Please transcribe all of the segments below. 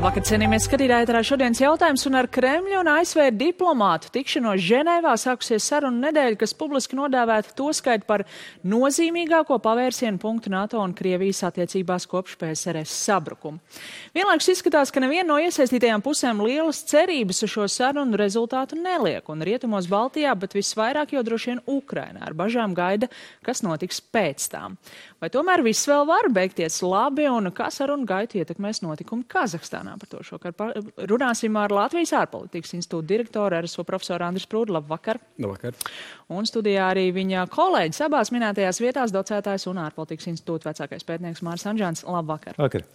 Labvakar, cienījamies skatītāji, ēterā šodienas jautājums, un ar Kremļa un ASV diplomātu tikšanos Ženēvā sākusies sarunu nedēļa, kas publiski nodēvēta to skait par nozīmīgāko pavērsienu punktu NATO un Krievijas attiecībās kopš PSRS sabrukuma. Vienlaikus izskatās, ka neviena no iesaistītajām pusēm lielas cerības uz šo sarunu rezultātu neliek, un rietumos Baltijā, bet visvairāk jau droši vien Ukrainā ar bažām gaida, kas notiks pēc tām. Vai tomēr viss vēl var beigties labi, un kā sarunu gaitu ietekmēs notikumi Kazahstānā? Par to šokar runāsim ar Latvijas ārpolitikas institūta direktoru RSO profesoru Andris Prūdu. Labvakar. Labvakar. Un studijā arī viņa kolēģis abās minētajās vietās, docētājs un ārpolitikas institūta vecākais pētnieks Māris Anžāns. Labvakar. Vakar.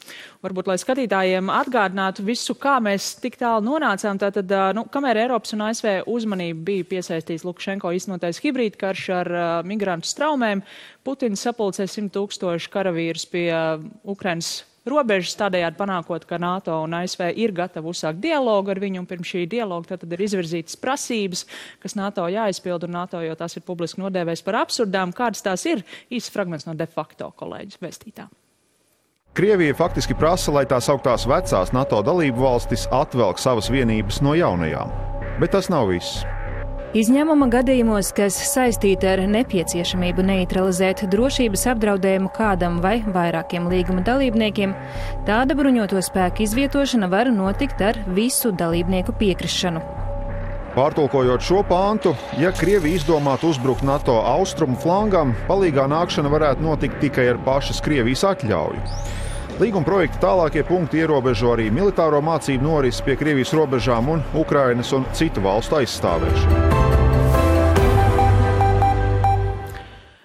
Varbūt, lai skatītājiem atgādinātu visu, kā mēs tik tālu nonācām, tātad, kamēr Eiropas un ASV uzmanība bija piesaistīts Lukašenko iznotais hibrīdkarš ar migrantu straumēm, Putins sapulcē 100,000 karavīrus pie Ukrainas robežas, tādējādi panākot, ka NATO un ASV ir gatavi uzsākt dialogu ar viņu, un pirms šī dialoga tad ir izvirzītas prasības, kas NATO jāizpild, un NATO jau tās ir publiski nodēvējis par absurdām. Kādas tās ir? Īsts fragments no de facto kolēģis vēstītā. Krievija faktiski prasa, lai tās augtās vecās NATO dalību valstis atvelk savas vienības no jaunajām. Bet tas nav viss. Izņēmuma gadījumos, kas saistīti ar nepieciešamību neutralizēt drošības apdraudējumu kādam vai vairākiem līguma dalībniekiem, tāda bruņoto spēku izvietošana var notikt ar visu dalībnieku piekrišanu. Pārtulkojot šo pāntu, ja Krievija izdomātu uzbrukt NATO austrumu flangam, palīgā nākšana varētu notikt tikai ar pašas Krievijas atļauju. Līguma projekta tālākie punkti ierobežo arī militāro mācību norisi pie Krievijas robežām un Ukrainas un citu valstu aizstāvēšanu.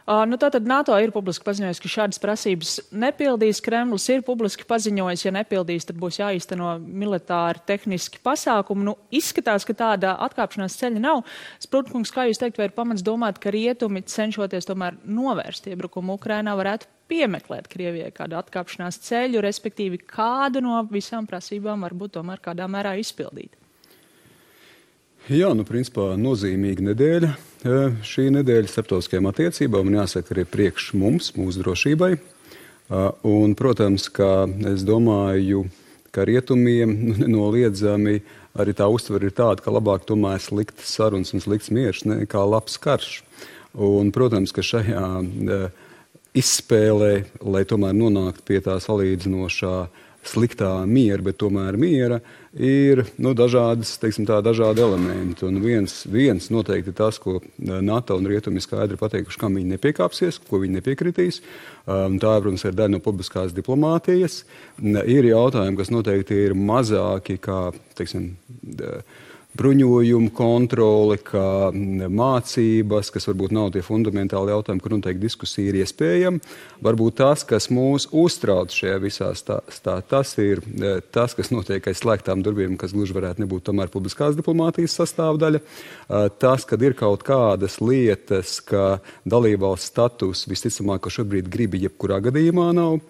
Tātad NATO ir publiski paziņojis, ka šādas prasības nepildīs. Kremlis ir publiski paziņojis, ja nepildīs, tad būs jāīsteno militāri tehniski pasākumi. Izskatās, ka tāda atkāpšanās ceļa nav. Sprūdkungs, kā jūs teikt, vai ir pamats domāt, ka rietumi cenšoties tomēr novērst iebrukumu Ukrainā varētu piemeklēt Krievijai kādu atkāpšanās ceļu, respektīvi kādu no visām prasībām varbūt tomēr kādā mērā izpildīt? Jā, principā nozīmīga nedēļa. Šī nedēļa starptautiskajām attiecībām un jāsaka arī priekš mums, mūsu drošībai. Un, protams, ka es domāju, ka rietumiem nenoliedzami arī tā uztvere ir tāda, ka labāk tomēr sliktas sarunas un slikts miers nekā labs karš. Un, protams, ka šajā izspēlē, lai tomēr nonāktu pie tā salīdzinošā sliktā miera, bet tomēr miera, ir dažādi elementi. Un viens noteikti tas, ko NATO un rietumi skaidri pateikuši, kam viņi nepiekāpsies, ko viņi nepiekritīs. Tā, protams, ir daļa no publiskās diplomātijas. Ir jautājumi, kas noteikti ir mazāki, kā, bruņojumu kontroli, kā mācības, kas varbūt nav tie fundamentāli jautājumi, kur noteikti diskusija ir iespējama. Varbūt tas, kas mūs uztrauc šajā visā tas ir tas, kas notiek aiz slēgtām durvīm, kas gluži varētu nebūt tomēr publiskās diplomātijas sastāvdaļa. Tas, kad ir kaut kādas lietas, ka dalībvalsts status visticamāk, ka šobrīd gribi jebkurā gadījumā nav.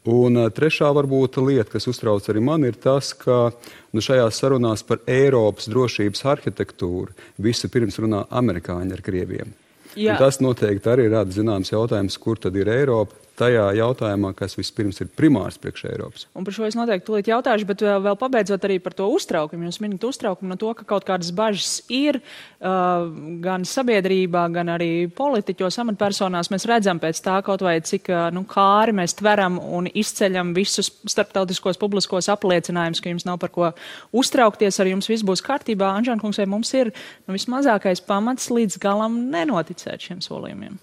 Un trešā varbūt lieta, kas uztrauc arī man, ir tas, ka šajās sarunās par Eiropas drošības arhitektūru visu pirms runā amerikāņi ar krieviem. Tas noteikti arī rada zināms jautājums, kur tad ir Eiropa tajā jautājumā, kas vispirms ir primārs priekš Eiropas. Un par šo es noteikti tūlīt jautāšu, bet vēl pabeidzot arī par to uztraukumu. Jūs minat uztraukumu no to, ka kaut kādas bažas ir gan sabiedrībā, gan arī politiķos, amatpersonās. Mēs redzam pēc tā kaut vai cik kāri mēs tveram un izceļam visus starptautiskos publiskos apliecinājumus, ka jums nav par ko uztraukties, ar jums viss būs kārtībā. Anžānkungs, vai mums ir vismazākais pamats līdz galam nenoticēt šiem solījumiem?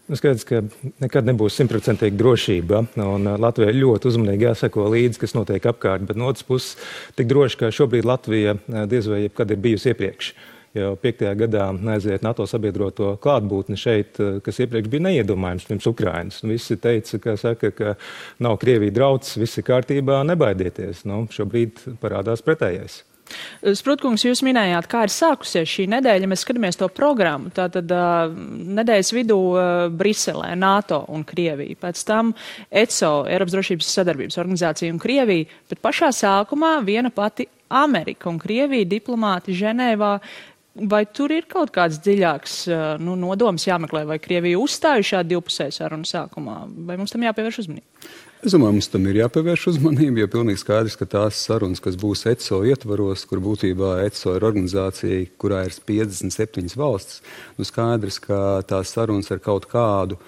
Skaidrs, ka nekad nebūs 100% drošība, un Latvijai ļoti uzmanīgi jāseko līdzi, kas notiek apkārt, bet no otras puses tik droši, ka šobrīd Latvija diez vai jebkad ir bijusi iepriekš. Jau 5. gadā aiziet NATO sabiedroto klātbūtni šeit, kas iepriekš bija neiedomājams pirms Ukrainas. Visi teica, ka nav Krievija drauds, viss ir kārtībā, nebaidieties. Šobrīd parādās pretējais. Sprūdkungs, jūs minējāt, kā ir sākusies šī nedēļa. Mēs skatāmies to programmu. Tātad nedēļas vidū Briselē, NATO un Krievija. Pēc tam ECO, Eiropas drošības sadarbības organizācija un Krievija. Bet pašā sākumā viena pati Amerika un Krievija diplomāti Ženēvā. Vai tur ir kaut kāds dziļāks nodoms jāmeklē, vai Krievija uzstāja šādu divpusēju sarunu sākumā? Vai mums tam jāpievērš uzmanību? Es domāju, mums tam ir jāpievērš uzmanība, jo pilnīgi skaidrs, ka tās sarunas, kas būs ECO ietvaros, kur būtībā ECO ir organizācija, kurā ir 57 valstis, skaidrs, ka tās sarunas ar kaut kādu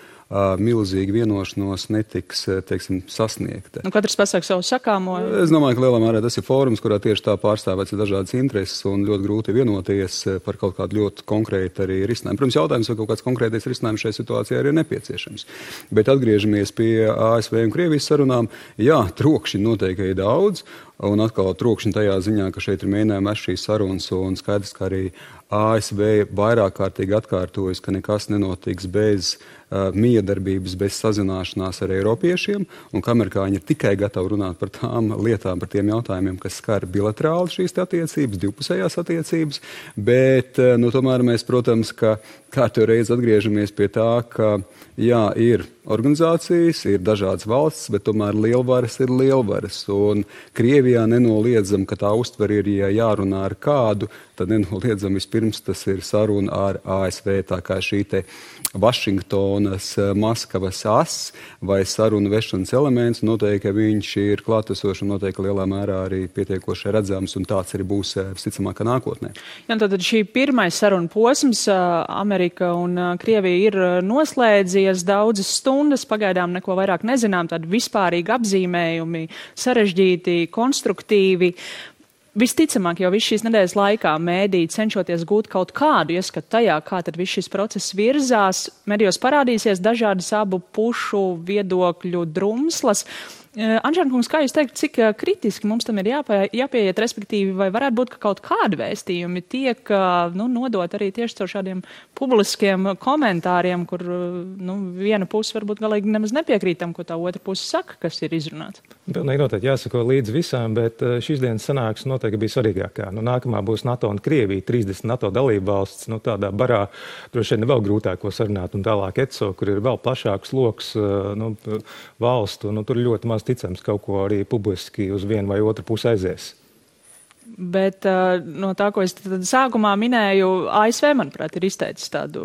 milzīga vienošanos netiks, teiksim, sasniegta. Katrs pasaka savu sakāmo. Es domāju, ka lielā mērā tas ir fórums, kurā tieši tā pārstāvēts ir dažādas intereses un ļoti grūti vienoties par kaut kādu ļoti konkrētu arī risinājumu. Protams, jautājums, vai kaut kāds konkrētais risinājums šai situācijai arī ir nepieciešams. Bet atgriežamies pie ASV un Krievijas sarunām. Jā, trokšņi noteikti ir daudz. Un atkal trokšņi tajā ziņā, ka šeit ir mēģinājumi ar šīs sarunas un skaidrs, ka arī ASV vairāk kārtīgi atkārtojas, ka nekas nenotiks bez miedarbības, bez sazināšanās ar eiropiešiem, un ka amerikāņi ir tikai gatavi runāt par tām lietām, par tiem jautājumiem, kas skar bilaterāli šīs attiecības, divpusējās attiecības, bet tomēr mēs, protams, ka kārtējo reizi atgriežamies pie tā, ka jā, ir organizācijas, ir dažādas valstis, bet tomēr lielvaras ir lielvaras, un Krievijā nenoliedzam, ka tā uztver ir, ja jārunā ar kādu, tad nenoliedzam vispirms tas ir saruna ar ASV, tā kā šī te Vašingtonas, Maskavas as vai sarunu vešanas elements, noteikti viņš ir klātesošs un noteikti lielā mērā arī pietiekoši redzams, un tāds arī būs visticamāk nākotnē. Jā, tad šī pirmais saruna posms Amerika un Krievija ir noslēdzies daudzas stundas, pagaidām neko vairāk nezinām, tādi vispārīgi apzīmējumi, sarežģīti, konstruktīvi. Visticamāk, jau visu šīs nedēļas laikā mēdī cenšoties gūt kaut kādu ieskatu tajā, kā tad viss šis process virzās, medijos parādīsies dažādas abu pušu viedokļu drumslas. Anžēna kungs, kā jūs teikt, cik kritiski mums tam ir jāpieiet, respektīvi, vai varētu būt, ka kaut kādi vēstījumi tiek nodot arī tieši caur šādiem publiskiem komentāriem, kur viena puse varbūt galīgi nemaz nepiekrīt tam, ko tā otra puse saka, kas ir izrunāts? Pilnīgi noteikti jāsako līdz visām, bet šīs dienas sanāksme noteikti bija svarīgākā. Nākamā būs NATO un Krievija, 30 NATO dalību valsts, tādā barā droši vien vēl grūtāko sarunāt, un tālāk ECO, kur ir vēl plašāks loks valstu, tur ļoti maz ticams kaut ko arī publiski uz vienu vai otru pusi aizies. Bet no tā, ko es sākumā minēju, ASV, manuprāt, ir izteicis tādu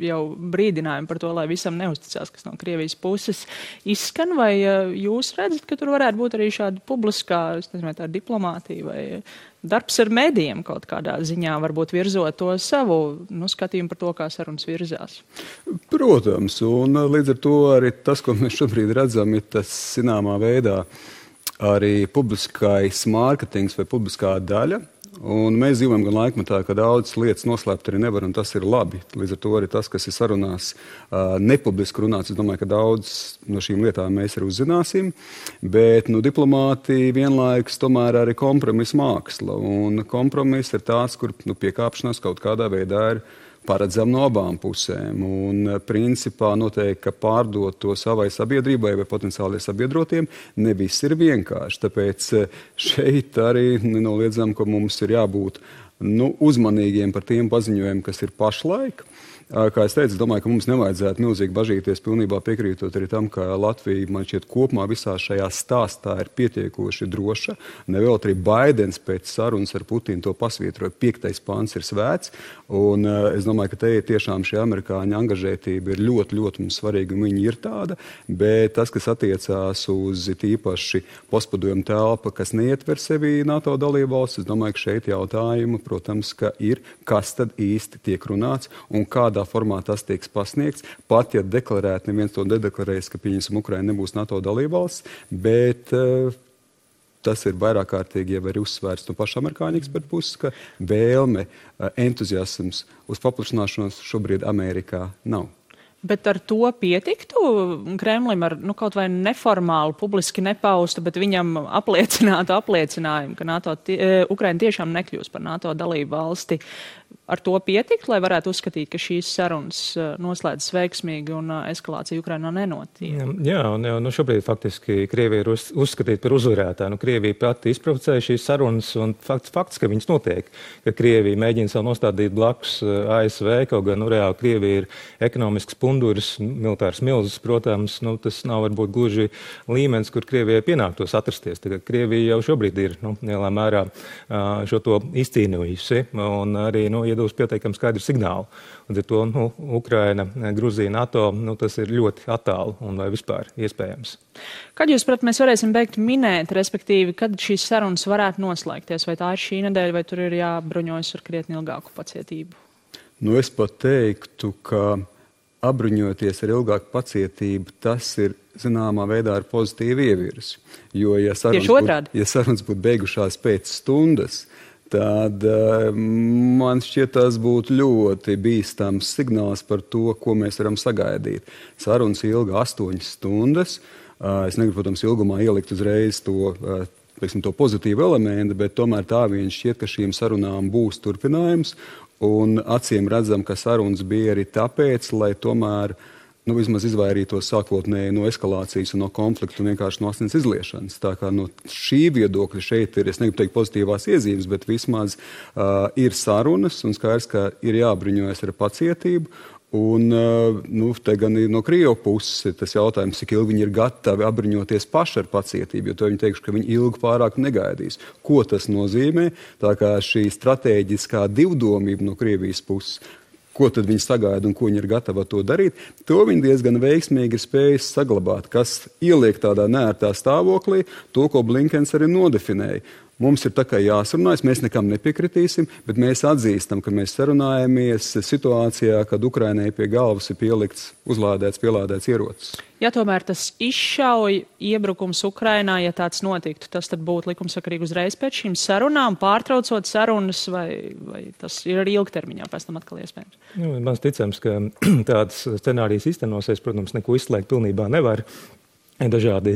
jau brīdinājumu par to, lai visam neusticās, kas no Krievijas puses izskan, vai jūs redzat, ka tur varētu būt arī šāda publiskā, es nezinu, tā diplomātija vai darbs ar medijiem kaut kādā ziņā, varbūt virzot to savu skatījumu par to, kā sarunas virzās? Protams, un līdz ar to arī tas, ko mēs šobrīd redzam, ir tas zināmā veidā arī publiskais mārketings vai publiskā daļa. Un mēs dzīvojam gan laikmetā, ka daudzas lietas noslēpt arī nevar, un tas ir labi. Līdz ar to arī tas, kas ir sarunās nepubliski runāts, es domāju, ka daudz no šīm lietām mēs arī uzzināsim. Bet diplomātija vienlaikus tomēr arī kompromisa māksla. Un kompromiss ir tāds, kur piekāpšanās kaut kādā veidā ir paredzam no abām pusēm. Un principā noteikti, ka pārdot to savai sabiedrībai vai potenciāli sabiedrotiem ne viss ir vienkārši. Tāpēc šeit arī nenoliedzam, ka mums ir jābūt uzmanīgiem par tiem paziņojumiem, kas ir pašlaik. Kā es teicu, es domāju, ka mums nevajadzētu milzīgi bažīties, pilnībā piekrītot arī tam, ka Latvija, man šķiet, kopumā visā šajā stāstā ir pietiekoši droša. Nevēl arī Baidens pēc sarunas ar Putinu to pasvītroja, 5. pants ir svēts, un es domāju, ka te tiešām šī amerikāņu angažētība ir ļoti, ļoti mums svarīga, un viņi ir tāda, bet tas, kas attiecās uz tīpaši postpadomu telpa, kas neietver sevi NATO dalībvalstis, es domāju, ka šeit jautājumi, protams, ka ir, kas tad īsti tiek runāts un kādā formā tas tiek pasniegts, pat ja deklarēt, neviens to nedeklarēs, ka pieņemsim Ukraina nebūs NATO dalībvalsts, bet tas ir vairāk kārtīgi jau arī uzsvērts no paša amerikāņu ekspertu puses, ka vēlme, entuziasms uz paplašināšanos šobrīd Amerikā nav. Bet ar to pietiktu Kremlim ar kaut vai neformālu, publiski nepaustu, bet viņam apliecinātu apliecinājumu, ka Ukraina tiešām nekļūs par NATO dalību valsti. Ar to pietikt, lai varētu uzskatīt, ka šīs sarunas noslēdzas veiksmīgi un eskalācija Ukrainā nenotiek? Jā, un šobrīd faktiski Krievija ir uzskatīta par uzvarētāju. Krievija pati izprovocēja šīs sarunas, un fakts, ka viņas notiek, ka Krievija mēģina sev nostādīt blakus ASV, kaut gan reāli Krievija ir ekonomisks punduris, militārs milzis, protams, tas nav varbūt gluži līmenis, kur Krievijai pienāktos atrasties. Tagad Krievija jau šobrīd ir lielā mērā šo to izcīnījusi, un arī iedūs pietiekami skaidru signālu. Un ar to Ukraina, Gruzija, NATO, tas ir ļoti attālu un vai vispār iespējams. Kad jūs, prāt, mēs varēsim beigt minēt, respektīvi, kad šīs sarunas varētu noslēgties? Vai tā ir šī nedēļa, vai tur ir jābruņojas ar krietni ilgāku pacietību? Es pat teiktu, ka apbruņoties ar ilgāku pacietību, tas ir zināmā veidā ar pozitīvu ievirzi. Jo, ja sarunas būtu beigušās pēc stundas, tad man šķiet, tas būtu ļoti bīstams signāls par to, ko mēs varam sagaidīt. Sarunas ilga 8 stundas. Es negribu, protams, ilgumā ielikt uzreiz to pozitīvu elementu, bet tomēr tā vien šķiet, ka šīm sarunām būs turpinājums. Un acīm redzam, ka sarunas bija arī tāpēc, lai tomēr vismaz izvairītos sākotnēji no eskalācijas un no konfliktu un vienkārši no asins izliešanas. Tā kā no šī viedokļa šeit ir, es negribu teikt pozitīvās iezīmes, bet vismaz ir sarunas un skaidrs, ka ir jābruņojas ar pacietību. Un te gan no Krievu puses tas jautājums, cik ilgi viņi ir gatavi apbruņoties paši ar pacietību, jo to viņi teikšu, ka viņi ilgi pārāk negaidīs. Ko tas nozīmē? Tā kā šī stratēģiskā divdomība no Krievijas puses, ko tad viņi sagaida un ko viņi ir gatavi to darīt, to viņi diezgan veiksmīgi ir spējis saglabāt, kas ieliek tādā neērtā stāvoklī, to, ko Blinkens arī nodefinēja. Mums ir tā kā jāsarunājas, mēs nekam nepiekritīsim, bet mēs atzīstam, ka mēs sarunājamies situācijā, kad Ukrainai pie galvas ir pielikts, pielādēts ierocis. Ja tomēr tas izšauj iebrukums Ukrainā, ja tāds notiktu, tas tad būtu likumsakarīgi uzreiz pēc šīm sarunām, pārtraucot sarunas, vai tas ir arī ilgtermiņā pēc tam atkal iespējams? Man ticams, ka tāds scenārijs īstenosies, protams, neko izslēgt pilnībā nevar. Ir dažādi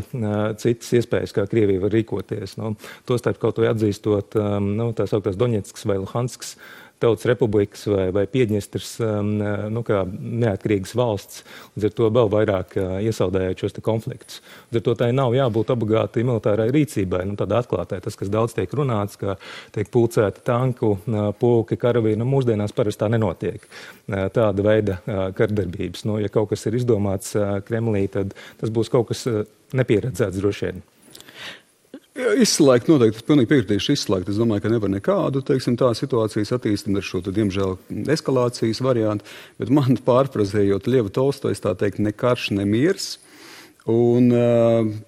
citas iespējas, kā Krievija var rīkoties. Tostarp kaut vai atzīstot tā sauktās Doņetskas vai Luhanskas tautas republikas vai Piedņestras kā neatkarīgas valsts, līdz ar to vēl vairāk iesaldējot šos konfliktus. Līdz ar to tai nav jābūt obligāti militārai rīcībai, tādā atklātai. Tas, kas daudz tiek runāts, ka tiek pulcēti tanku, pulki, karavīri, mūsdienās parasti tā nenotiek. Tāda veida kardarbības. Ja kaut kas ir izdomāts Kremlī, tad tas būs kaut kas nepieredzēts droši vien. Izslēgt noteikti, es pilnīgi piekritīšu izslēgt. Es domāju, ka nevar nekādu, tā situācijas attīstību ar šo, diemžēl, eskalācijas variantu, bet man pārfrazējot Ļevu Tolstojs, tā teikt, ne karš, ne miers. Un,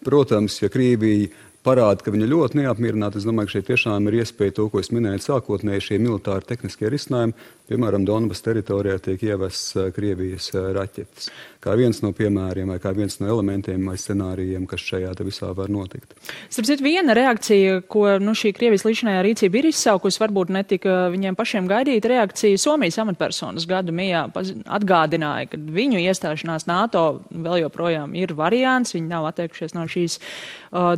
protams, ja Krievija parāda, ka viņa ļoti neapmierināta, es domāju, ka šeit tiešām ir iespēja to, ko es minēju sākotnēji, šie militāri tehniskie risinājumi. Piemēram, Donbas teritorijā tiek ievests Krievijas raķetes. Kā viens no piemēriem vai kā viens no elementiem vai scenārijiem, kas šajā visā var notikt. Starp citu, viena reakcija, ko šī Krievijas līdzinājā rīcība ir izsaukusi, varbūt netika viņiem pašiem gaidīta reakcija. Somijas amatpersonas gadu mijā atgādināja, ka viņu iestāšanās NATO vēl joprojām ir variants, viņi nav atteikušies no šīs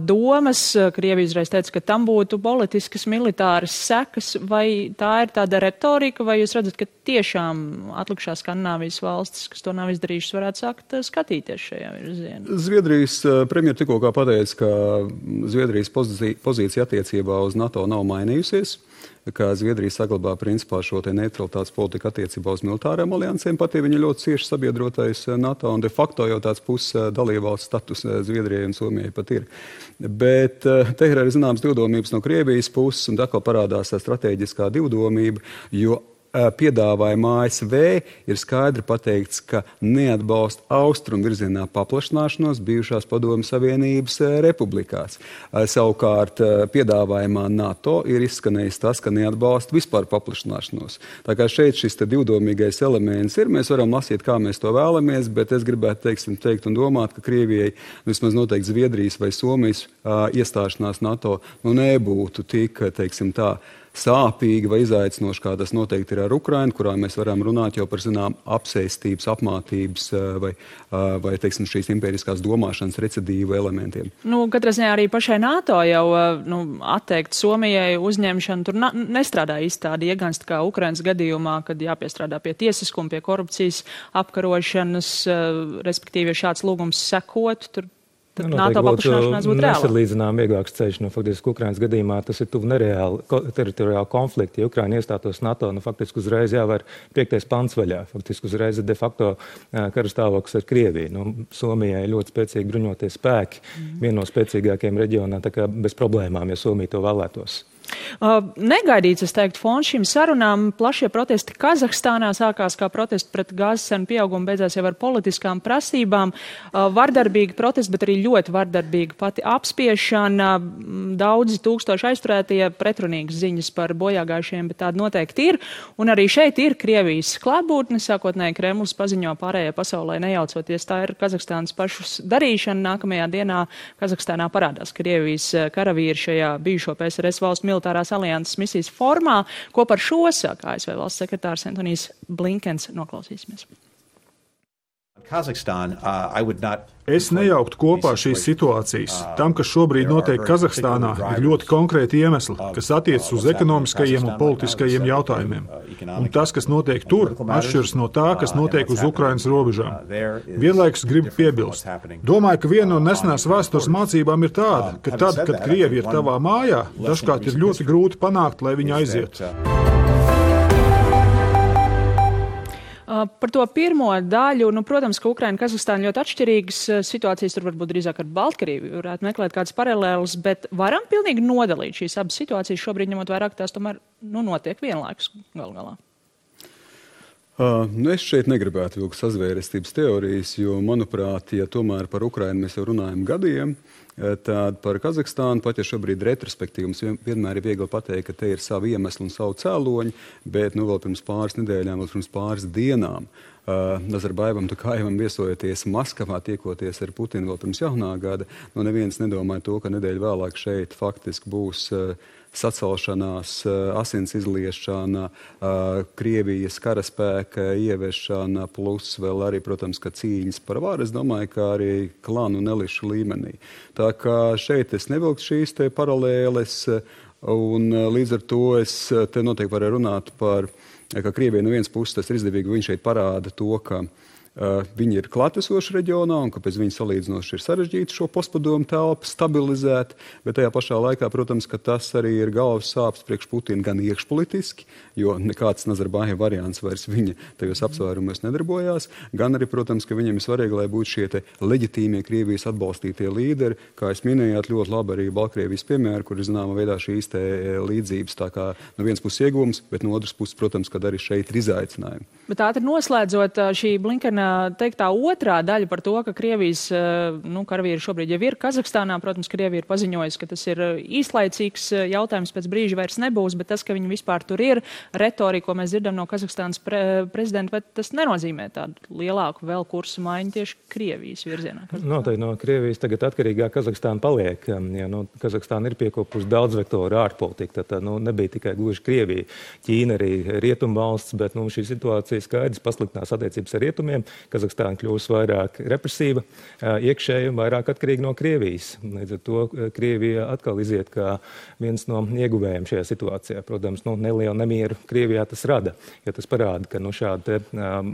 domas. Krievija uzreiz teica, ka tam būtu politiskas, militāras sekas, vai tā ir tāda retorika, vai jūs redzat, ka tiešām atlikušās Skandināvijas valstis, kas to nav izdarījušas, varētu sākt skatīties šajā virzienā? Zviedrijas premjera tikko pateica, ka Zviedrijas pozīcija attiecībā uz NATO nav mainījusies, ka Zviedrija saglabā principā šo neutralitātes politiku attiecībā uz militārām aliansēm, pat ja viņa ļoti cieši sabiedrotais NATO, un de facto jau tāds puses dalībvalsts status Zviedrijai un Somijai pat ir. Bet te ir arī zināms divdomības no Krievijas puses, un atkal parādās strateģiskā divdomība, jo piedāvājumā ASV ir skaidri pateikts, ka neatbalsta austrumu virzienā paplašināšanos bijušās Padomju Savienības republikās. Savukārt piedāvājumā NATO ir izskanējis tas, ka neatbalsta vispār paplašināšanos. Tā kā šeit šis divdomīgais elements ir, mēs varam lasīt, kā mēs to vēlamies, bet es gribētu teikt un domāt, ka Krievijai, vismaz noteikti Zviedrijas vai Somijas iestāšanās NATO, nebūtu tik, sāpīgi vai izaicinoši, kā tas noteikti ir ar Ukrainu, kurā mēs varam runāt jau par apsēstības, apmātības vai šīs impēriskās domāšanas recidīvu elementiem. Katrā ziņā arī pašai NATO jau atteikt Somijai uzņemšanu tur nestrādā īsti tādi iegansti kā Ukrainas gadījumā, kad jāpiestrādā pie tiesiskuma, pie korupcijas apkarošanas, respektīvi, ja šāds lūgums sekot, tur NATO paplašināšanās būtu reāla. Nesalīdzinām vieglāks ceļš. Faktiski Ukrainas gadījumā tas ir tuvu nereāli teritoriāli konflikti. Ja Ukraina iestātos NATO, faktiski uzreiz jāvar 5. pants vaļā. Faktiski uzreiz ir de facto karastāvoklis ar Krieviju. Somijai ļoti spēcīgi bruņoties spēki, viena no spēcīgākajiem reģionā, tā kā bez problēmām, ja Somija to vēlētos. Negaidīts, es teiktu, fons šīm sarunām. Plašie protesti Kazahstānā sākās kā protesti pret gāzes cenu pieaugumu, beidzās jau ar politiskām prasībām. Vardarbīgi protesti, bet arī ļoti vardarbīga pati apspiešana. Daudzi tūkstoši aizturētie, pretrunīgas ziņas par bojāgājušiem, bet tāda noteikti ir. Un arī šeit ir Krievijas klātbūtne. Sākotnēji Kremlis paziņo pārējai pasaulē nejaucoties. Tā ir Kazahstānas pašas darīšana. Nākamajā dienā Kazahstānā parādās Krievijas karavīri šajā bijušo PSRS valstu militārās alianses misijas formā. Ko par šo saka ASV valsts sekretārs Antonijs Blinkens. Noklausīsimies. Es nejauktu kopā šīs situācijas. Tam, kas šobrīd notiek Kazahstānā, ir ļoti konkrēti iemesli, kas attiecas uz ekonomiskajiem un politiskajiem jautājumiem. Un tas, kas notiek tur, atšķiras no tā, kas notiek uz Ukrainas robežām. Vienlaikus gribu piebilst. Domāju, ka viena no nesenās vēstures mācībām ir tāda, ka tad, kad Krievi ir tavā mājā, dažkārt ir ļoti grūti panākt, lai viņi aizietu. Par to pirmo daļu, protams, ka Ukraina un Kazahstāna ļoti atšķirīgas situācijas, tur varbūt drīzāk ar Baltkrieviju varētu meklēt kādas paralēlas, bet varam pilnīgi nodalīt šīs abas situācijas šobrīd, ņemot vairāk, tās tomēr notiek vienlaikus galu galā. Es šeit negribētu vilkt sazvērestības teorijas, jo, manuprāt, ja tomēr par Ukrainu mēs jau runājam gadiem, tad par Kazahstānu, pat ja šobrīd retrospektīvi mums vienmēr ir viegli pateikt, ka te ir savi iemesli un savu cēloņi, bet vēl pirms pāris nedēļām, vēl pirms pāris dienām Nazarbaivam Tokajevam viesojoties Maskavā, tiekoties ar Putinu vēl pirms jaunā gada, neviens nedomāja to, ka nedēļu vēlāk šeit faktiski būs sacelšanās, asins izliešana, Krievijas karaspēka ieviešana, plus vēl arī, protams, ka cīņas par varu, es domāju, ka arī klanu un elišu līmenī. Tā kā šeit es nevilktu šīs te paralēles, un līdz ar to es te noteikti varēju runāt par, ka Krievijai no vienas puses tas ir izdevīgi, viņš šeit parāda to, ka viņi ir klātesoši reģionā un kāpēc viņi salīdzinoši ir sarežģīti šo postpadomu telpu stabilizēt, bet tajā pašā laikā, protams, ka tas arī ir galvas sāpes priekš Putina gan iekšpolitiski, jo nekāds Nazarbājeva variants vairs viņa tajos apsvērumos nedarbojās, gan arī, protams, ka viņiem ir svarīgi, lai būtu šie te leģitīmie Krievijas atbalstītie līderi, kā es minējāt ļoti labi arī Baltkrievijas piemēru, kur ir zināma veidā šīs te līdzības, tā kā no vienas puses ieguvums, bet no otras puses, protams, kad arī šeit ir izaicinājumi. Bet ātri noslēdzot šī Blinkena teiktā otrā daļa par to, ka Krievijas karavīri šobrīd jau ir Kazahstānā. Protams, Krievija ir paziņojusi, ka tas ir īslaicīgs jautājums, pēc brīža vairs nebūs, bet tas, ka viņi vispār tur ir, retorika, ko mēs dzirdam no Kazahstānas prezidenta, bet tas nenozīmē tādu lielāku vēl kursu maiņu tieši Krievijas virzienā. Noteikti no Krievijas tagad atkarīgā Kazahstāna paliek. Ja, Kazahstāna ir piekopusi daudz vektoru ārpolitika, tad nebija tikai gluži Krievija. Ķīna arī rietumvalsts, bet šī situācija skaidrs pasliktinās attiecības ar rietumiem. Kazahstāna kļūs vairāk represīva, iekšēji un vairāk atkarīga no Krievijas. Līdz ar to Krievija atkal iziet kā viens no ieguvējiem šajā situācijā. Protams, nelielu nemieru Krievijā tas rada, jo tas parāda, ka šādi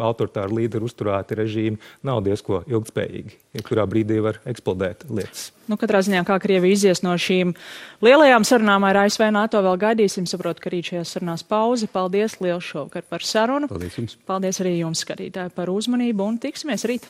autoritāri līderi uzturēti režīmi nav diezko ilgtspējīgi, kurā brīdī var eksplodēt lietas. Katrā ziņā, kā Krievija izies no šīm lielajām sarunām ar ASV NATO, vēl gaidīsim. Saprotu, ka rīt šajās sarunās pauze. Paldies liels šovakar par sarunu. Paldies jums. Paldies arī jums, skatītāji, par uzmanību un tiksimies rīt.